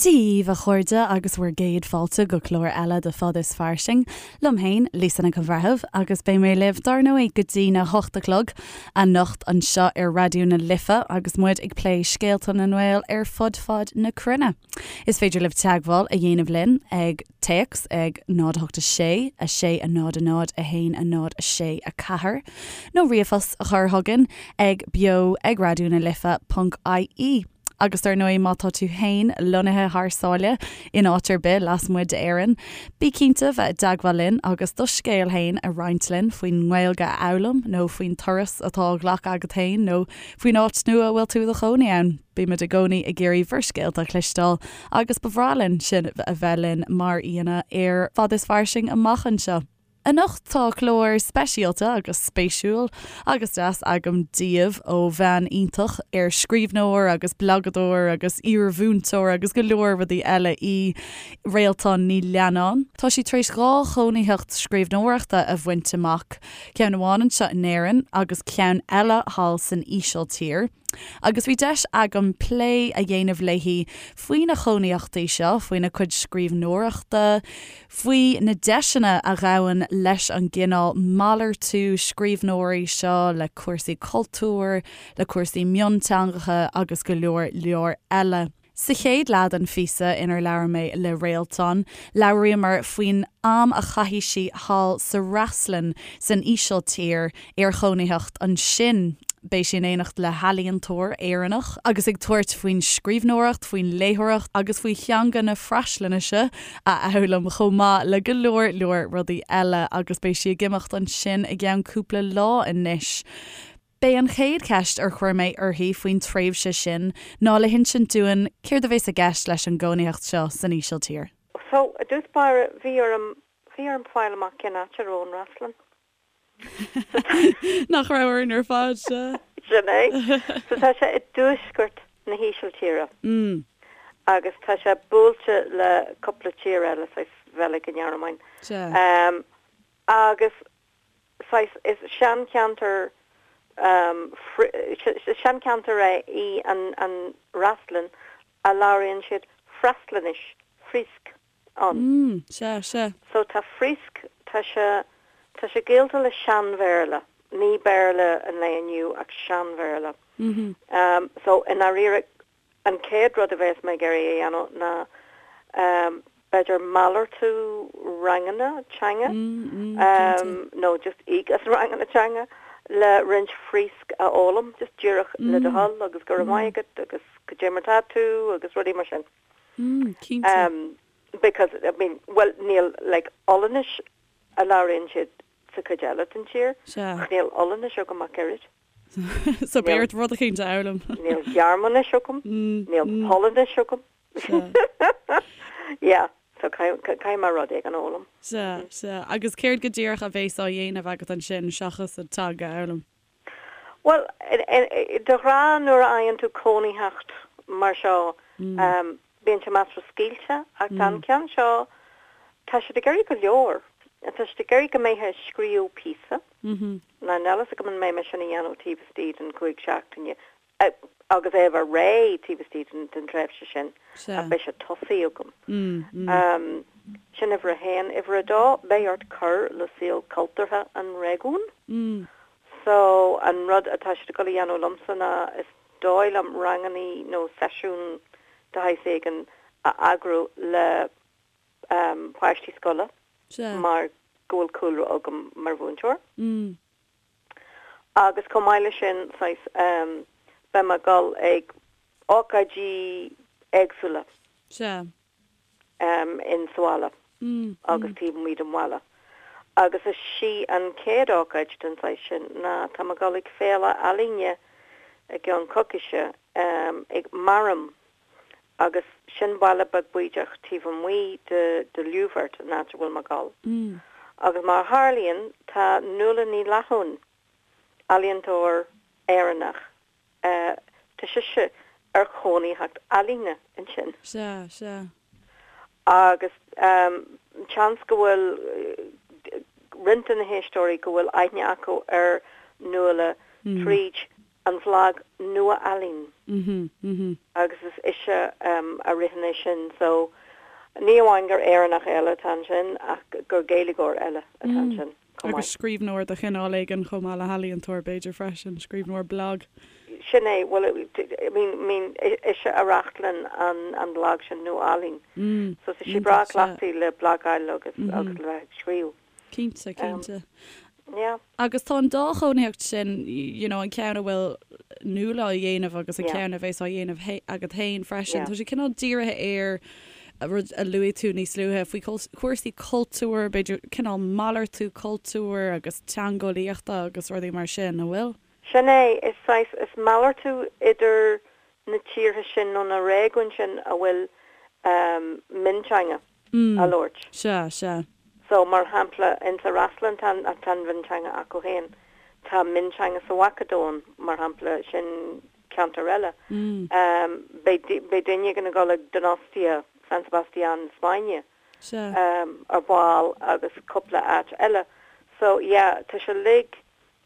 Dia dhaoibh, a chairde, agus bhur gcéad fáilte go clár eile de Fad is Fairsing. Liom féin, Lisa Nic an Bhreithimh, agus beidh mé libh, dar ndóigh, go dtí na hocht a chlog anocht anseo ar Raidió na Life agus muid ag plé scéalta na nGael ar fud fad na cruinne. Is féidir libh teagmháil a dhéanamh linn ag téacs ag 0 8 6 6 0 0 1 0 6 4 nó ríomhphost a chur chugainn ag beo ag raidió na life ponc ie. Agus dar ndóigh má tá tú féin lonnaithe thar sáile in áit ar bith lasmuigh d'Éirinn, bí cinnte bheith i dteagmháil linn agus do scéal féin a roinnt linn faoin nGaeilge a fhoghlaim nó faoin turas atá á ghlacadh agat féin nó faoin áit nua a bhfuil tú i do chónaí ann. Bímid i gcónaí ag iarraidh bhur scéalta a chloisteáil agus ba bhreá linn sibh a bheith linn mar aíonna ar Fad is Fairsing amach anseo. Anocht tá clár speisialta agus spéisiúil agus deas agam daoibh ó bhean iontach ar scríbhneoir agus blagadóir agus iarmhúinteoir agus go leor rudaí eile í, Réaltán Ní Leannáin. Tá sí tar éis 2 chónaitheacht scríbhneoireachta a bhaint amach, ceann amháin anseo in Éirinn agus ceann eile thall san Ísiltír. Agus bhí deis agam plé a dhéanamh léi faoi na cónaitheachtaí seo, faoina cuid scríbhneoireachta, faoi na deiseanna a ghabhann leis an gcineál malartú scríbhneoirí seo le cúrsaí cultúir, le cúrsaí mionteangacha agus go leor leor eile. Sa chéad leath den phíosa inar labhair mé le Réaltán, labhraíomar faoin am a chaith sí thall sa Fhreaslainn san Ísiltír ar chónaitheacht ansin. Beidh sí in éineacht le healaíontóir Éireannach agus ag tabhairt faoin scríbhneoireacht, faoin léitheoireacht agus faoi theanga na Freaslainnise a fhoghlaim chomh maith le go leor leor rudaí eile agus beidh sí ag imeacht ansin i gceann cúpla lá anois. B'é an chéad cheist ar chuir mé uirthi faoin tréimhse sin ná le hinsint dúinn céard a bhéas i gceist leis an gcónaitheacht seo san Ísiltír. So, i dtús báire, bhí orm, bhí orm fáil amach cén áit a raibh an Fhreaslainn. So tá. Nach raibh orainn ar fad, sea. Sin é. So tá sé i dtuaisceart na hÍsiltíre. Agus tá sé buailte le cúpla tír eile, saghas Bheilg, an Ghearmáin. Sea. Agus saghas, is seancheantar, is seancheantar é í an an Fhreaslainn a labhraíonn siad Freaslainnis, Fríosc, ann. Mm, sea, sea. So tá Fríosc, tá sé, tá sé gaolta le Sean-Bhéarla, ní Béarla an lae inniu ach Sean-Bhéarla. So i ndáiríre An chéad rud a bheas mé ag iarraidh a dhéanamh ná b'fhéidir malartú ranganna teanga nó just íoc as ranganna teanga le roinnt Fríosc a fhoghlaim, just díreach le do thoil agus go raibh maith agat agus cad é mar tá tú agus rudaí mar sin. Cinnte. Because, I mean, bhuel níl like Ollainnis a labhraíonn siad sa chuid eile den tír Sea. ach níl Ollainnis agam ach oiread. So beidh ort rud eicínt a fhoghlaim. Níl Gearmáinis agam, níl Polainnis agam. Yeah, so caithfidh mé rud éigin a fhoghlaim. Sea, sea. Agus céard go díreach a bhéas á dhéanamh agat ansin seachas an teanga a fhoghlaim? Bhuel, de ghnáth nuair a fhaigheann tú cónaitheacht mar seo, bíonn sé measartha scaoilte, ach tá an ceann seo, tá siad ag iarraidh go leor. Tá siad ag iarraidh go mbeifeá ag scríobh píosa. Now níl a fhios agam an mbeidh mé sin a dhéanamh taobh istigh den chúig seachtaine, agus é a bheith réidh taobh istigh den tréimhse sin, ach beidh sé tosaithe agam. Sin uimhir a haon. Uimhir a dó, beidh ort cur le saol cultúrtha an réigiúin. So, an rud atá siad ag dul a dhéanamh liomsa ná, is dóigh liom, rangannaí nó seisiún de shaghas éigin a eagrú le páistí scoile mar go bhfuil cúlra agam mar mhúinteoir. Agus chomh maith leis sin, saghas, beidh mé ag dul ag ócáidí éagsúla in sa bhaile agus taobh amuigh den bhaile. Agus is í an chéad ócáid den saghas sin ná tá mé ag dul ag féile ealaíne i gceann coicíse ag Marum agus sin baile beag bídeach taobh amuigh de de Ljouwert, an áit a bhfuil mé ag dul. Agus mar a tharlaíonn, tá Nuala Ní Fhlathúin, ealaíontóir Éireannach, tá sise ar chónaitheacht ealaíne ansin. Sea, sea. Agus seans go bhfuil roinnt de na héisteoirí go bhfuil aithne acu ar Nuala tríd. An bhlag Nua-Ealaín agus is ise a ritheann é sin so ní amháin gur Éireannach eile atá ansin ach gur Gaeilgeoir eile atá ansin chomh maith. Agus scríbhneoir de chineál éigin chomh maith le healaíontóir b'fhéidir freisin, scríbhneoir blag. Sin é, bhuel I mean, mean ise a reáchtálann an an blag sin Nua-Ealaín so tá sí breá cleachtaithe le blagáil agus agus le bheith ag scríobh. Cinnte, cinnte. Yeah. Agus tá an dá chónaitheacht sin, you know, an ceann a bhfuil Nuala á dhéanamh agus an ceann a bheas á dhéanamh agat féin freisin, tá sé cineál dírithe ar rud a luaigh tú níos luaithe faoi chúrsaí cultúir, b'fhéidir cineál malartú cultúir agus teangeolaíochta agus rudaí mar sin, an bhfuil? Sin é, is saghas, is malartú idir na tíortha sin nó na réigiúin sin a bhfuil mionteanga á labhairt. Sea, sea. So, mar shampla, insa Fhreaslainn tá tá an mhionteanga acu féin. Tá mionteanga sa Mhacadóin, mar shampla, sin ceantar eile. Beidh beidh duine éigin ag dul ag Donostia, San Sebastián na Spáinne, ar ball agus cúpla áit eile. So, yeah, tá sé uilig,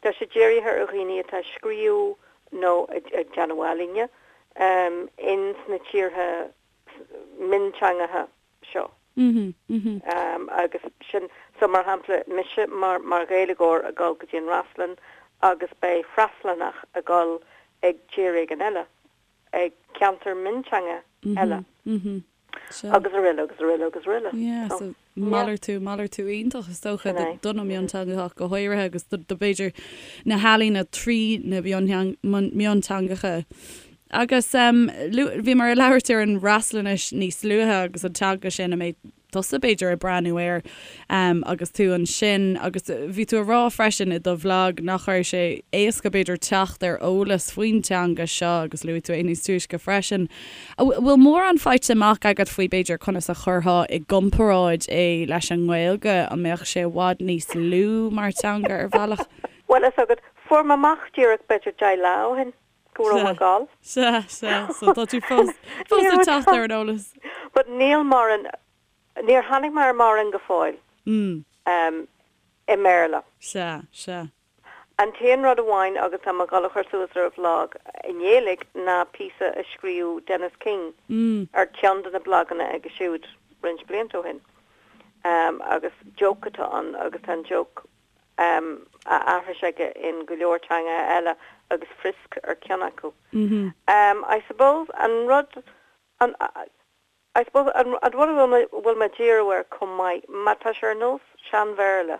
tá sé dírithe ar dhaoine atá ag scríobh nó ag déanamh ealaíne ins na tíortha mionteangacha seo. Agus sin, so mar shampla, mise mar mar Ghaeilgeoir ag dul go dtí an Fhreaslainn agus beidh Freaslannach ag dul ag tír éigin eile, ag ceantar mionteanga eile. Agus araile agus araile agus araile. Yeah, so malartú, malartú iontach is dócha do na mionteangacha ach go háirithe agus do b'fhéidir na healaíona trí na mionteangacha. Agus bhíomar ag labhairt ar an bhFreaslainnis níos luaithe agus an teanga sin a mbeidh tusa b'fhéidir ag breathnú air agus tú ansin agus bhí tú ag rá freisin i do bhlag nach raibh sé éasca b'fhéidir teacht ar eolas faoin teanga seo agus luaigh tú é níos túisce freisin. An bhfuil mórán faighte amach agat faoi b'fhéidir conas a chuirfeá i gcomparáid é leis an nGaeilge? An mbeadh sé i bhfad níos lú mar teanga ar bhealach? Bhuel, fhios agat, fuair mé amach díreach b'fhéidir 10 lá ó shin go raibh mé ag dul. Sea, sea, so tá tú fós, fós ag teacht ar an eolas. But níl mórán, níor tháinig mé ar mórán go fóill i mBéarla. Sea, sea. An t-aon rud amháin agus tá mé ag dul a chur suas ar an bhlag i nGaeilge ná píosa a scríobh Dennis King ar cheann de na blaganna aige siúd roinnt blianta ó shin. Agus joke atá ann agus tá an joke á aithris aige in go leor teangacha eile agus Frisk ar ceann acu. I suppose an rud an I suppose an rud a bhfuil mé ag díriú air chomh maith, má tá sé ar nós Sean-Bhéarla,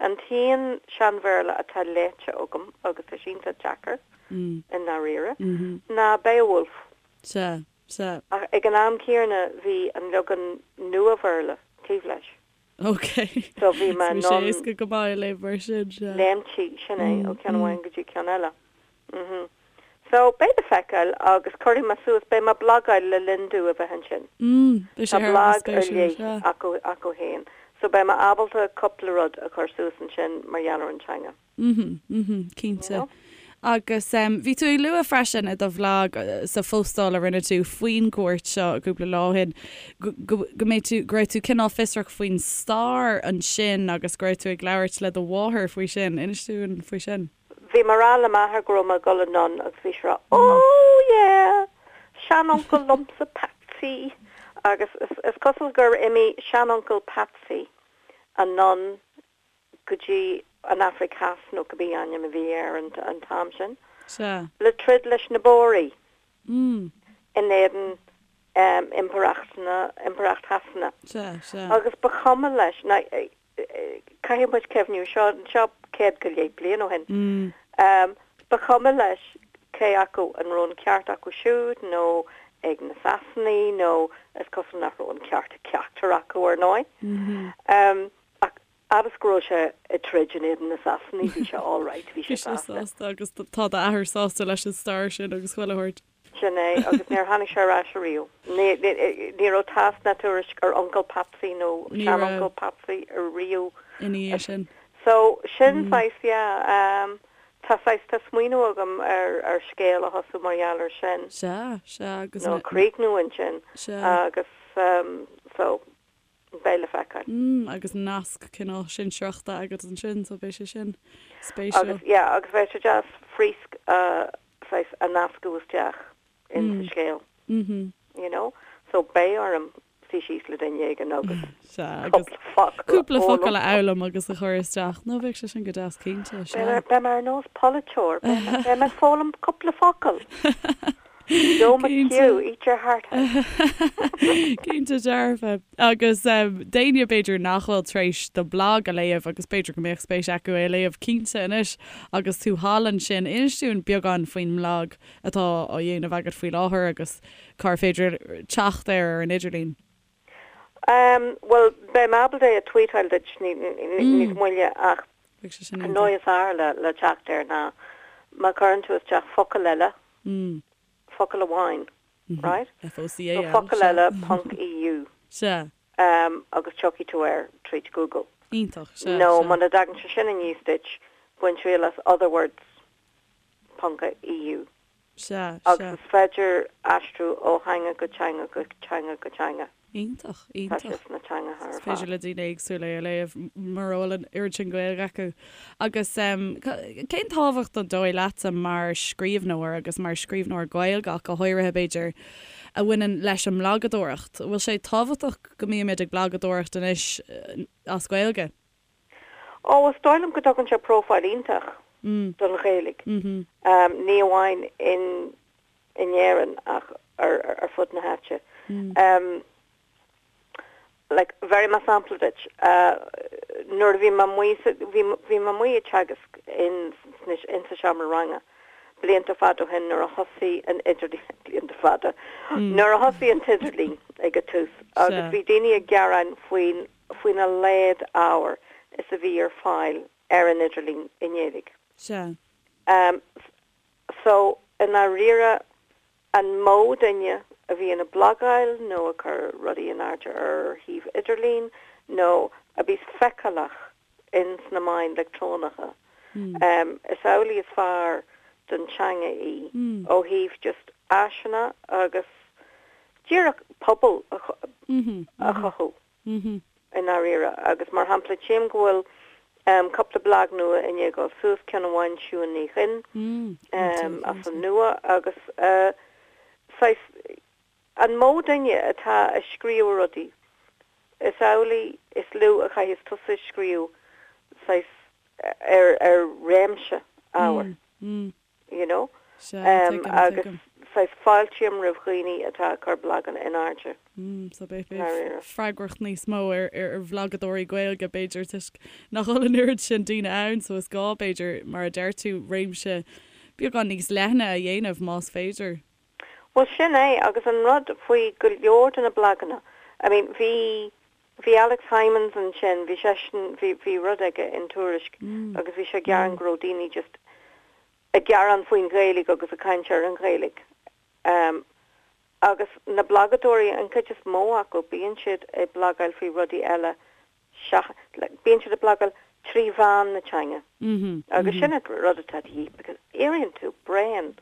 an t-aon Sean-Bhéarla atá léite agam, agus tá sé iontach deacair, i ndáiríre, ná Beowulf. Sea, sea. Ach ag an am céanna bhí an leagan Nua-Bhéarla taobh leis. Ok. So bhí mé in ann. Bhí sé éasca go maith a léamh mar sin, sea. Léimtí, sin é, ó cheann amháin go dtí ceann eile. Mhm. So, beidh le feiceáil agus cuirfidh mé suas, beidh mé ag blagáil le linn domh a bheith ansin. Mm, beidh sé Tá thar a bheith blag ar spéisiúil, leith sea. acu, acu féin. So beidh mé ábalta cúpla rud a chur suas ansin mar gheall ar an teanga. Mhm, mhm, You cinnte. know? Agus em, bhí tú ag lua freisin i do bhlag sa phostáil a rinne tú faoin gcuairt seo cúpla lá ó shin go, go, go mbeidh tú, go raibh tú cineál fiosrach faoin stair ansin agus go raibh tú ag labhairt le do mháthair faoi sin. Inis dúinn faoi sin. Bhí mé ag rá le m'athair go raibh mé ag dul anonn agus bhí sé ag rá Oh yeah! Seanuncail liomsa Patsy! Agus is cosúil gur imigh seanuncail Patsy anonn go dtí an Afraic Theas nó cibé ainm a bhí air an t-am sin, Sea. le troid leis na Bóraigh in éadan Impireacht na, Impireacht Shasana. Sea, sea. Agus ba chuma leis, now caithfidh muid cuimhniú, seo, seo 100 go leith bliain ó shin, ba chuma leis cé acu an raibh an ceart acu siúd nó ag na Sasanaigh nó is cosúil nach raibh an ceart ag ceachtar acu ar ndóigh. Ach fhad is go raibh sé ag troid in éadan na Sasanaigh bhí sé all right, bhí sé sásta. Bhí sé sásta agus tá d'athair sásta leis an stair sin agus chuile shórt. Sin é, agus níor tháinig sé ar ais ariamh. Ní raibh tásc ná tuairisc ar Uncail Patsy nó seanuncail Patsy ariamh. Ina dhiaidh sin. So, sin saghas, yeah, tá saghas, tá smaoineamh agam ar ar scéal a thosú mar gheall ar sin. Sea, sea, agus. Nó a chríochnú ansin. Sea. Agus, so, beidh le feiceáil. Mm, agus nasc cineál sinsearachta agat ansin, so beidh sé sin spéisiúil. Agus, yeah, agus bheadh sé deas Fríosc a. saghas a nascadh isteach in sa scéal, you know. So beidh orm suí síos le duine éigin agus cúpla focal a Cúpla focal a fhoghlaim agus a chur isteach. No, bheadh sé sin go deas cinnte, sea. Beidh mé ar nós polaiteoir, beidh mé ag foghlaim cúpla focal. Joe McHugh, eat your heart out. Cinnte dearfa. Agus d'éinne b'fhéidir nach bhfuil tar éis do bhlag a léamh agus b'fhéidir go mbeadh spéis acu é a léamh cinnte anois agus tú thall ansin, inis dúinn beagán faoin mblag atá á dhéanamh agat faoi láthair agus cár féidir teacht air ar an idirlíon. Bhuel, beidh mé ábalta é a tweetáil duit níos moille ach an dóigh is fearr le teacht air ná má chuireann tú isteach focal eile Focal amháin, right? F-O-C-A-L, So focal eile ponc EU. Sea. Agus tiocfaidh tú air tríd Google. Iontach, sea, Nó sea. muna dtagann sé sin aníos duit, bain triail as otherwords ponc EU. Sea, Agus sea. is féidir aistriú ó theanga go teanga go teanga go teanga. Iontach, Tá iontach. sé sna teangacha ar Is féidir fad. le daoine éagsúla é a léamh mura bhfuil an oiread sin Gaeilge acu. Agus cén tábhacht an dóigh leatsa mar scríbhneoir agus mar scríbhneoir Gaeilge ach go háirithe b'fhéidir, a bhaineann leis an mblagadóireacht? An bhfuil sé tábhachtach go mbímid ag blagadóireacht anois as Gaeilge? Ó, is dóigh liom go dtugann sé profile iontach don Ghaeilge, ní amháin in in Éirinn ach ar ar fud na háite. Like, bhéarfaidh mé sampla duit. Nuair a bhí mé amuigh sa, bhí, bhí mé amuigh ag teagasc in, in sa seomra ranga blianta fada ó shin nuair a thosaigh an idirlíon, blianta fada, nuair a thosaigh an t-idirlíon ag an tús agus bhí daoine ag gearán faoin, faoina laghad ábhair is a bhí ar fáil ar an idirlíon i nGaeilge. Sea. So, i ndáiríre, an mó duine a bhíonn ag blagáil nó ag cur rudaí in airde ar shuíomh idirlín nó a bíos feiceálach ins na meáin leictreonacha, is amhlaidh is fearr don teanga í ó thaobh just áiseanna agus díreach pobal a chothú. i ndáiríre. Agus mar shampla, tchím go bhfuil cúpla blag nua i ndiaidh dul suas, ceann amháin Siún Ní Dhuinn as an nua agus saghas, an mó duine atá ag scríobh rudaí, is amhlaidh is lú a chaithfeas tusa scríobh saghas ar réimse ábhair. you know. Sea, tuigim, Agus tuigim. saghas fáiltím roimh dhaoine atá ag cur blaganna in airde. Mm, so beidh, beidh Dáiríre. freagracht níos mó ar, ar, ar bhlagadóirí Gaeilge, b'fhéidir, toisc nach bhfuil an oiread sin daoine ann, so is gá, b'fhéidir, mar a deir tú, réimse beagán níos leithne a dhéanamh, más féidir. Bhuel, sin é, agus an rud faoi go leor de na blaganna, I mean, bhí, bhí Alex Hijmans ansin, bhí seisean, bhí, bhí rud aige in Tuairisc agus bhí sé ag gearán go raibh daoine just ag gearán faoin Ghaeilge agus ag caint ar an Ghaeilge. Um, agus na blagadóirí, an chuid is mó acu, bíonn siad ag blagáil faoi rudaí eile Bíonn siad ag blagáil trí mheán na teanga agus sin an rud atá de dhíth because éiríonn tú bréan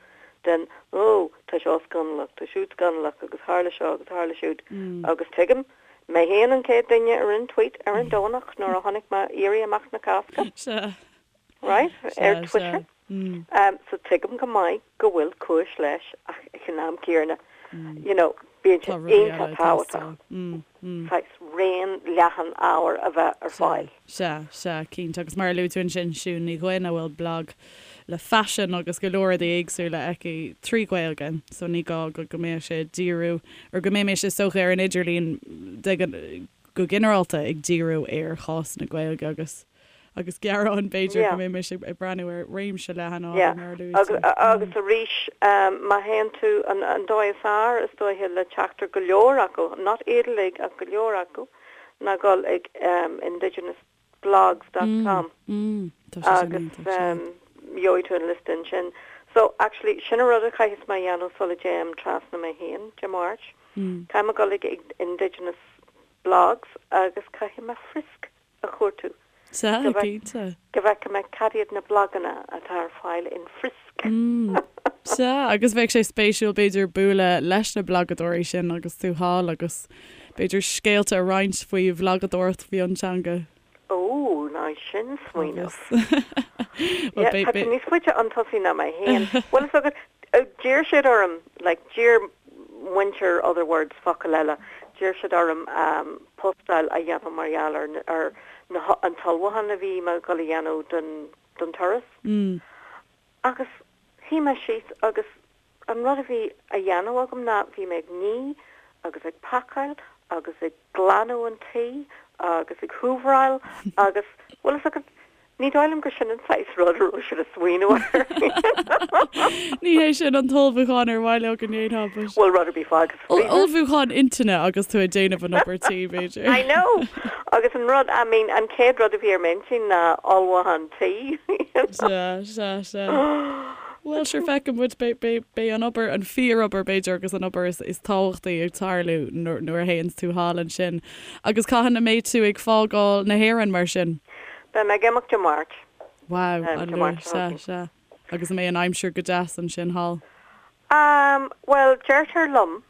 den oh tá seo scannalach, tá siúd scannalach agus tharla seo agus tharla siúd agus tuigim, mé féin an chéad duine a rinne tweet ar an Domhnach nuair a chonaic mé Éirí Amach na Cásca. Right? Ar Twitter. So tuigim go maith go bhfuil cúis leis ach ag an am céanna, you know, bíonn sé iontach tábhachtach saghas raon leathan ábhair a bheith ar fáil. Sea, sea, cinnte. Agus mar a luaigh tú ansin, Siún Ní Dhuinn, a bhfuil blag le faisean agus go leor rudaí éagsúla aici trí Ghaeilge, so ní gá go go mbeadh sé ag díriú, or go mbeimis is dócha ar an idirlíon de go ginearálta ag díriú ar chás na Gaeilge agus agus gearáin, b'fhéidir, go mbeimis ag breathnú ar réimse leathan ábhar, mar a luaigh tú. Agus arís, má théann tú, an dóigh is fearr, is dóiche, le teacht ar go leor acu, not iad uilig ach go leor acu, ná dul ag indigenousblogs dot com agus gheobhaidh tú an liosta ansin. So, actually, sin an rud a chaithfeas mé a dhéanamh sula dtéim trasna mé féin Dé Máirt. Caithfidh mé dul ag indigenousblogs agus caithfidh mé Frisk a chuartú. Sea, cinnte. Go bhfeicfidh mé cad iad na blaganna atá ar fáil in Frisk. Sea, agus bheadh sé spéisiúil b'fhéidir bualadh leis na blagadóirí sin agus tú thall agus b'fhéidir scéalta a roinnt faoi bhlagadóireacht mhionteanga. Ó, now. maith sin smaoineamh. Yeah, tá tú níos faide chun tosaigh ná mé féin. Bhfuil fhios agat, d'iarr siad orm, like, d'iarr muintir Other Words, Focail Eile, d'iarr siad orm postáil a dhéanamh mar gheall ar ar na an t-ullmhúchán a bhí mé ag dul a dhéanamh don don turas. Agus shuigh mé síos agus an rud a bhí á dhéanamh agam ná bhí mé ag ní agus ag pacáil agus ag glanadh an tí agus ag húvaráil agus, bhfuil fhios agat, ní dóigh liom gur sin an saghas rud a raibh siad ag smaoineamh air. Ní hé sin an t-ullmhúchán ar mhaith leo go ndéanfá, but. Bhuel, rud ar bith fágtha sa freezer. Ullmhúchán intinne agus tú ag déanamh an obair tí, b'fhéidir. I know! Agus an rud, I mean, an chéad rud a bhí ar m'intinn ná ullmhúchán tí, you know. Sea, sea, sea. Bhuel, sure, feicfidh muid, beidh, beidh, beidh an obair, an fíorobair, b'fhéidir, agus an obair is, is tábhachtaí ag tarlú nuair, nuair a théanns tú thall ansin. Agus cathain a mbeidh tú ag fágáil na hÉireann, mar sin? Beidh mé ag imeacht Dé Máirt. Wow, Dé Máirt seo chugainn. Sea, sea. Agus an mbeidh an aimsir go deas ansin thall? Um, bhuel, deirtear liom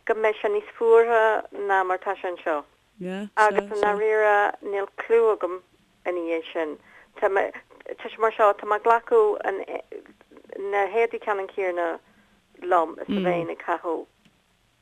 go mbeidh sé níos fuaire ná mar tá sé anseo. Yeah, sea, Agus i ndáiríre, níl clue agam ina dhiaidh sin. Tá mé, tá sé mar seo, tá mé ag glacadh an, na héadaí ceannann céanna liom is a bheinn ag caitheamh,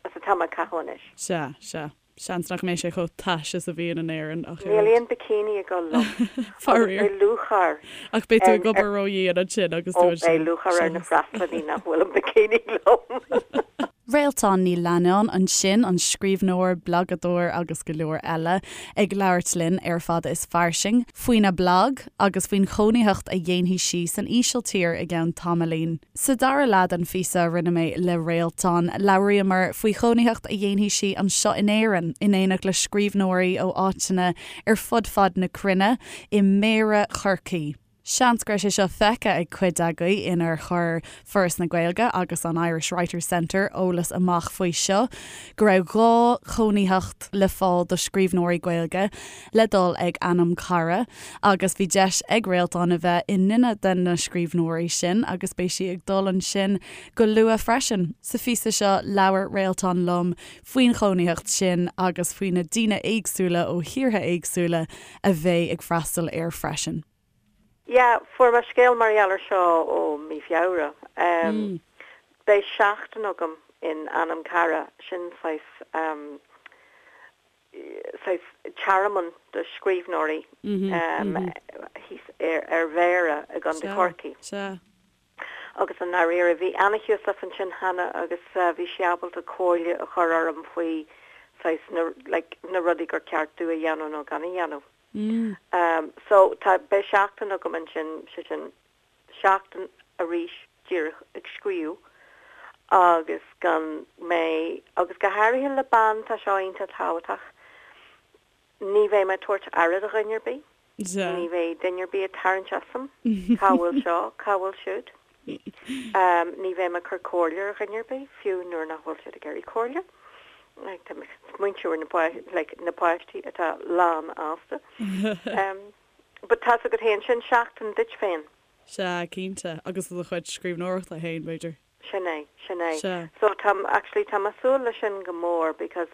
is atá mé ag caitheamh anois. Sea, sea. Seans nach mbeidh sé chomh tais is a bhíonn in Éirinn ach Níl aon bikini ag dul liom. Faraor. Agus beidh lúcháir Ach beidh tú ag obair ródhian ansin agus tú ansin. Ó, beidh lúcháir ar na freastalaithe nach bhfuil an bikini liom. Réaltán Ní Leannáin ansin, an scríbhneoir, blagadóir agus go leor eile, ag labhairt linn ar Fada is Fairsing faoina blag agus faoin chónaitheacht a dhéanfaidh sí san Ísiltír i gceann tamaillín. Sa dara leath den phíosa a rinne mé le Réaltán, labhraíomar faoi chónaitheacht a dhéanfaidh sí anseo in Éirinn, in éineacht le scríbhneoirí ó áiteanna ar fud fad na cruinne, i Méara Chorcaí. Seans go raibh sé seo feicthe ag cuid agaibh inar chuir Foras na Gaeilge agus an Irish Writers Centre eolas amach faoi seo, go raibh 2 chónaitheacht le fáil do scríbhneoirí Gaeilge le dul ag Anam Cara agus bhí deis ag Réaltán a bheith i nduine de na scríbhneoirí sin agus beidh sí ag dul ansin go luath freisin. Sa phíosa seo labhair Réaltán liom faoin chónaitheacht sin agus faoi na daoine éagsúla ó thíortha éagsúla a bheidh ag freastal air freisin. Yeah, fuair mé scéal mar gheall ar seo ó mí Feabhra. Beidh seachtain agam in Anam Cara, sin saghas saghas tearmann do scríbhneoirí thíos ar Bhéarra i gContae Chorcaí. Agus i ndáiríre, bhí Anna Heussaff ansin cheana agus bhí sí ábalta comhairle a chur orm faoi saghas na like na rudaí gur ceart domh a dhéanamh nó gan a dhéanamh. So tá, beidh seachtain agam ansin, sé sin seachtain arís díreach ag scríobh agus gan mé, agus go háirithe le bean tá seo iontach tábhachtach, Ní bheidh mé ag tabhairt aire do dhuine ar bith. Ní bheidh duine ar bith ag tarraingt asam, cá bhfuil seo, cá bhfuil siúd. Ní bheidh mé ag cur comhairle ar dhuine ar bith, fiú nuair nach bhfuil siad ag iarraidh comhairle. Tá mé ag smaointiú ar na páistí atá lánfhásta. But tá's agat féin, sin seachtain duit féin. Sea, cinnte. Agus do do chuid scríbhneoireachta féin, b'fhéidir. Sin é, sin é. Sea. So tá, actually tá mé ag súil leis sin go mór because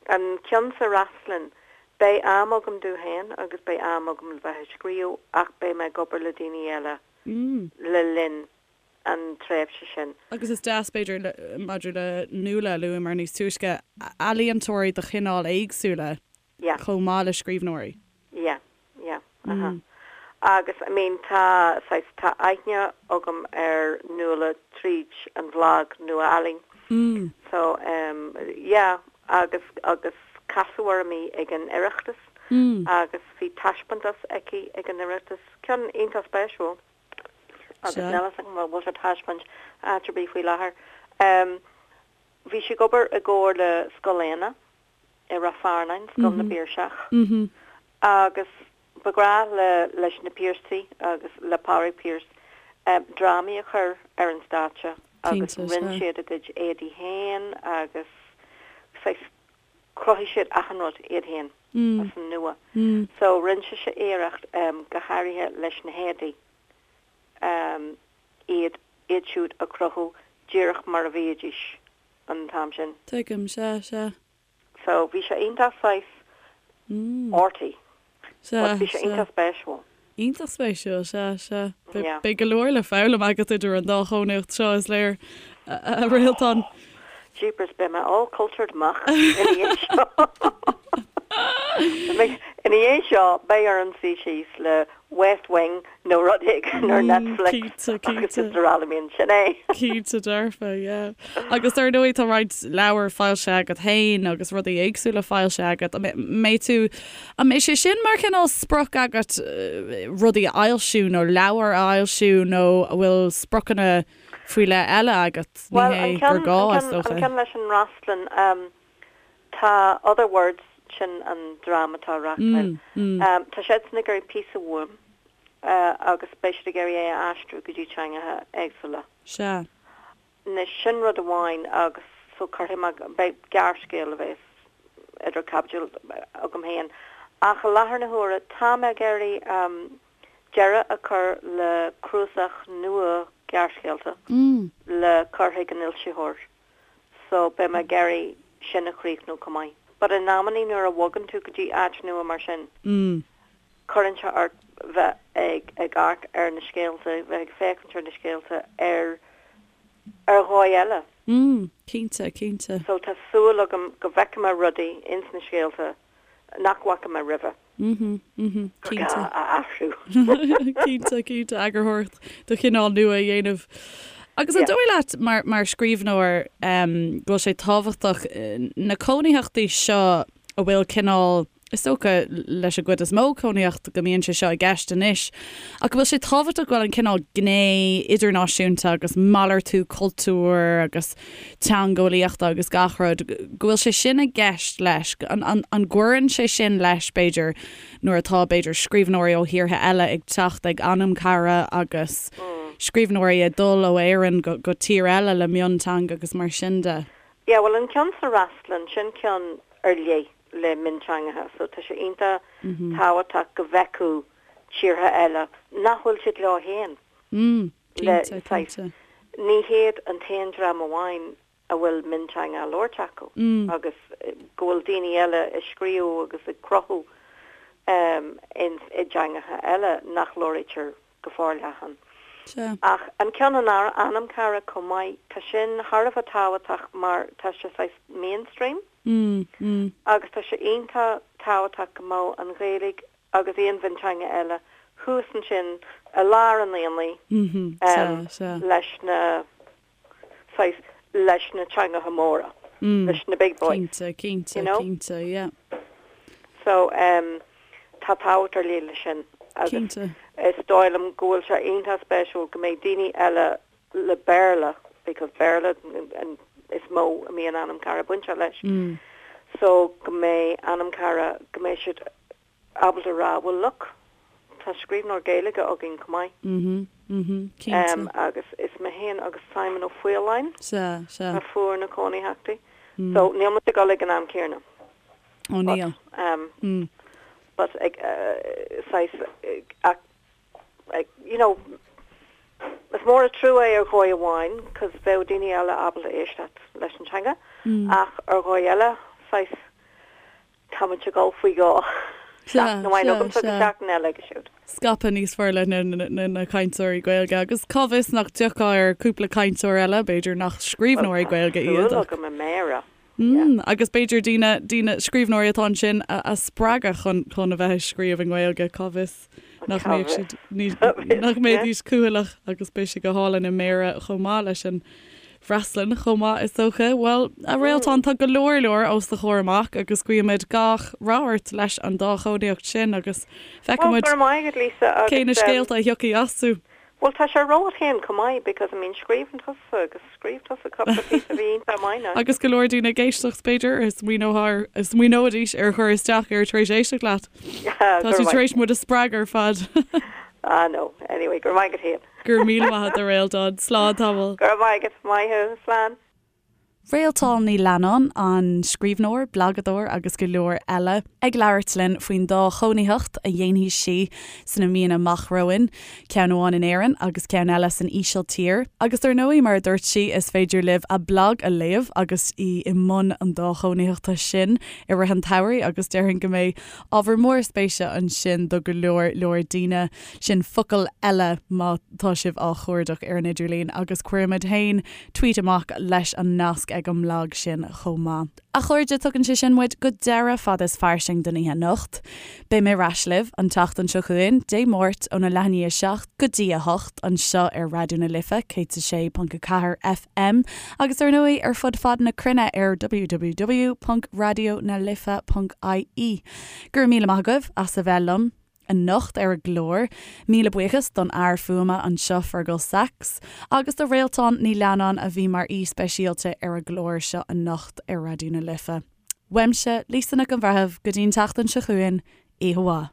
an ceann sa Fhreaslainn, beidh am agam domh féin agus beidh am agam le bheith ag scríobh ach beidh mé ag obair le daoine eile le linn an tréimhse sin. Agus is deas, b'fhéidir, maidir le Nuala a luamar níos túisce, ealaíontóirí de chineál éagsúla Yeah. chomh maith le scríbhneoirí. Yeah, yeah, uh-huh. Agus, I mean, tá, saghas, tá aithne agam ar Nuala tríd an bhlag Nua-Ealaín. So, em, yeah, agus, agus casadh orm í ag an Oireachtas agus bhí taispeántas aici ag an Oireachtas, ceann iontach spéisiúil. Agus níl a fhios agam an bhfuil sé ar taispeáint áit ar bith faoi láthair. Em, bhí sí ag obair i gcomhar le Scoil Éanna. i Ráth Fearnáin, Scoil na bPiarsach, agus ba ghnách le leis na Piarsaigh agus le Pádraig Pearse drámaí a chur ar an stáitse agus rinne siad a gcuid éadaí féin agus saghas chruthaigh siad achan rud iad féin as an nua. So rinne sise iarracht go háirithe leis na héadaí iad iad siúd a chruthú díreach mar a bhídís. an t-am sin. Tuigim, sea, sea. So, bhí sé iontach saghas arty. But bhí sé iontach spéisiúil. Iontach spéisiúil, sea, sea. Beidh go leor le foghlaim agat idir an dá chónaíocht seo, is léir, a Réaltán. Jeepers, beidh mé all cultured amach ina dhiaidh seo. Ina dhiaidh seo, beidh orm suí síos le West Wing nó rud éigin ar Netflix agus is araile bíonn sin é. Cinnte dearfa, yeah. Agus ar ndóigh tá roinnt leabhar foilsithe agat féin agus rudaí éagsúla foilsithe agat. An mbeidh tú, an mbeidh sé sin mar chineál sprioc agat rudaí a fhoilsiú nó leabhair a fhoilsiú nó an bhfuil spriocanna faoi leith eile agat? Ní hé gur gá is dócha. An ceann leis an Fhreastlann, Tá Other Words, sin an dream atá á reachtáil. Tá siadsan ag iarraidh píosa uaim agus beidh siad ag iarraidh é a aistriú go dtí teangacha éagsúla. Sea. Anois, sin rud amháin agus so cuirfidh mé, beidh gearrscéal a bheas idir caibidil agam féin. Ach i láthair na huaire, tá mé ag iarraidh deireadh a chur le cnuasach nua gearrscéalta le cur chuig an fhoilsitheoir. so beidh mé ag iarraidh sin a chríochnú chomh maith. But in amannaí nuair a bhogann tú go dtí áit nua mar sin, cuireann sé ort bheith ag ag amharc ar na scéalta, bheith ag féachaint ar na scéalta ar ar dhóigh eile. Mm, cinnte, cinnte. So tá súil agam go bhfeicfidh mé rudaí ins na scéalta nach bhfaca mé roimhe. Mhm, mhm, Gur gá cinnte. a athrú. Cinnte, cinnte, eagarthóireacht de chineál nua a dhéanamh. Agus an Yeah. dóigh leat, mar, mar scríbhneoir, em, go bhfuil sé tábhachtach na cónaitheachtaí seo a bhfuil cineál, is dócha leis an gcuid is mó cónaitheacht go mbíonn sé seo i gceist anois, ach go bhfuil sé tábhachtach go bhfuil an cineál gné idirnáisiúnta agus malartú cultúir agus teangeolaíochta agus gach rud, go bhfuil sé sin i gceist leis, an gcuireann sé sin leis, b'fhéidir, nuair atá, b'fhéidir, scríbhneoirí ó thíortha eile ag teacht ag Anamcara agus scríbhneoirí ag dul ó Éirinn go tír eile le mionteanga agus mar sin de. Yeah, bhuel an ceann sa Fhreastlann, sin ceann ar leith le mionteangacha, so tá sé iontach tábhachtach go bhfeicfeadh tíortha eile nach bhfuil siad leo féin. Le saghas, ní hiad an t-aon dream amháin a bhfuil mionteanga á labhairt acu agus go bhfuil daoine eile ag scríobh agus ag cruthú i dteangacha eile nach labhraítear go forleathan. Ach an ceann in Anamcara chomh maith, tá sin thar a bheith tábhachtach mar tá sé saghas mainstream agus tá sé iontach tábhachtach go mbeadh an Ghaeilge agus aon mhionteanga eile thuas ansin i lár an aonaigh leis na saghas leis na teangacha móra, leis na big boys. Cinnte, cinnte, you know? cinnte, yeah. So um, tá tábhacht ar leith leis sin agus Cinnte. is dóigh liom go bhfuil sé iontach spéisiúil go mbeidh daoine eile le Béarla because Béarla an is mó a mbíonn Anamcara bainteach leis so go mbeidh Anamcara go mbeidh siad ábalta a rá well look tá scríbhneoir Gaeilge againn chomh maith. Mhm, mhm, cinnte. Agus is mé féin agus Simon Ó Faoláin Sea, sea. a fuair na cónaitheachtaí. So níl muid ag dul ag an am céanna. Ó níl. But, but ag saghas ach you know, is mór an trua é ar dhóigh amháin cos bheadh daoine eile ábalta éisteacht leis an teanga ach ar dhóigh eile, saghas, táimid ag dul faoi dhó. Seachtain amháin agamsa agus seachtain eile aige siúd. Scaipeadh níos forleithne na cainteoirí Gaeilge agus cá bhfios nach dtiocfadh ar cúpla cainteoir eile, b'fhéidir nach scríbhneoirí Gaeilge iad ach. Tá súil agam i mBéarra. Mm, agus b'fhéidir daoine, daoine, scríbhneoirí atá ansin a, a spreagadh chun, chun a bheith ag scríobh i nGaeilge, cá bhfios nach mbeadh siad, ní, nach mbeidís cúthaileach agus beidh sé go hálainn i mBéarra chomh maith leis an bhFreastlann chomh maith is dócha. Bhuel, a Réaltán, tá go leor leor os do chomhair amach agus guímid gach rath ort leis an dá chónaíocht sin agus feicfidh muid cé na scéalta a thiocfaidh astu. Bhuel tá sé romhat féin chomh maith because I mean scríobhann tusa agus scríobh tusa cúpla píosa a bhí iontach maith now. Agus go leor daoine ag éisteacht b'fhéidir a smaoineoidh a smaoineoidís ar chur isteach air tar éis éisteacht leat. Tá tú tar éis muid a spreagadh ar fad. Ah no, anyway, go raibh maith agat féin. Go raibh míle maith agat a Réaltán. Slán tamall. Go raibh maith agat, maith thú, slán. Réaltán Ní Leannáin, an scríbhneoir, blagadóir agus go leor eile, ag labhairt linn faoin dá chónaitheacht a dhéanfaidh sí sna míonna amach romhainn, ceann amháin in Éirinn agus ceann eile san Ísiltír. Agus dar ndóigh, mar a dúirt sí, is féidir libh a blag a léamh agus í i mbun an dá chónaitheachta sin i rith an tsamhraidh agus déarfainn go mbeidh ábhar mór spéise ansin do go leor leor daoine. Sin focal eile má tá sibh á chuardach ar an idirlíon agus cuirfimid féin tweet amach leis an nasc ag an mblag sin chomh maith. A chairde, tugann sé sin muid go deireadh Fada is Fairsing don oíche anocht. Beidh mé ar ais libh an tseachtain seo chugainn, Dé Máirt, óna leath i ndiaidh a 7 go dtí a 8, anseo ar Raidió na Life 106.4 FM agus ar ndóigh ar fud fad na cruinne ar www.radionalife.ie. Go raibh míle maith agaibh as a bheith liom. anocht ar an gclár. Míle buíochas don fhear fuaime anseo Fergal Sachs agus do Réaltán Ní Leannáin a bhí mar aoi speisialta ar an gclár seo anocht ar Raidió na Life. Uaimse, Lisa Nic an Bhreithimh, go dtí an tseachtain seo chugainn, oíche mhaith.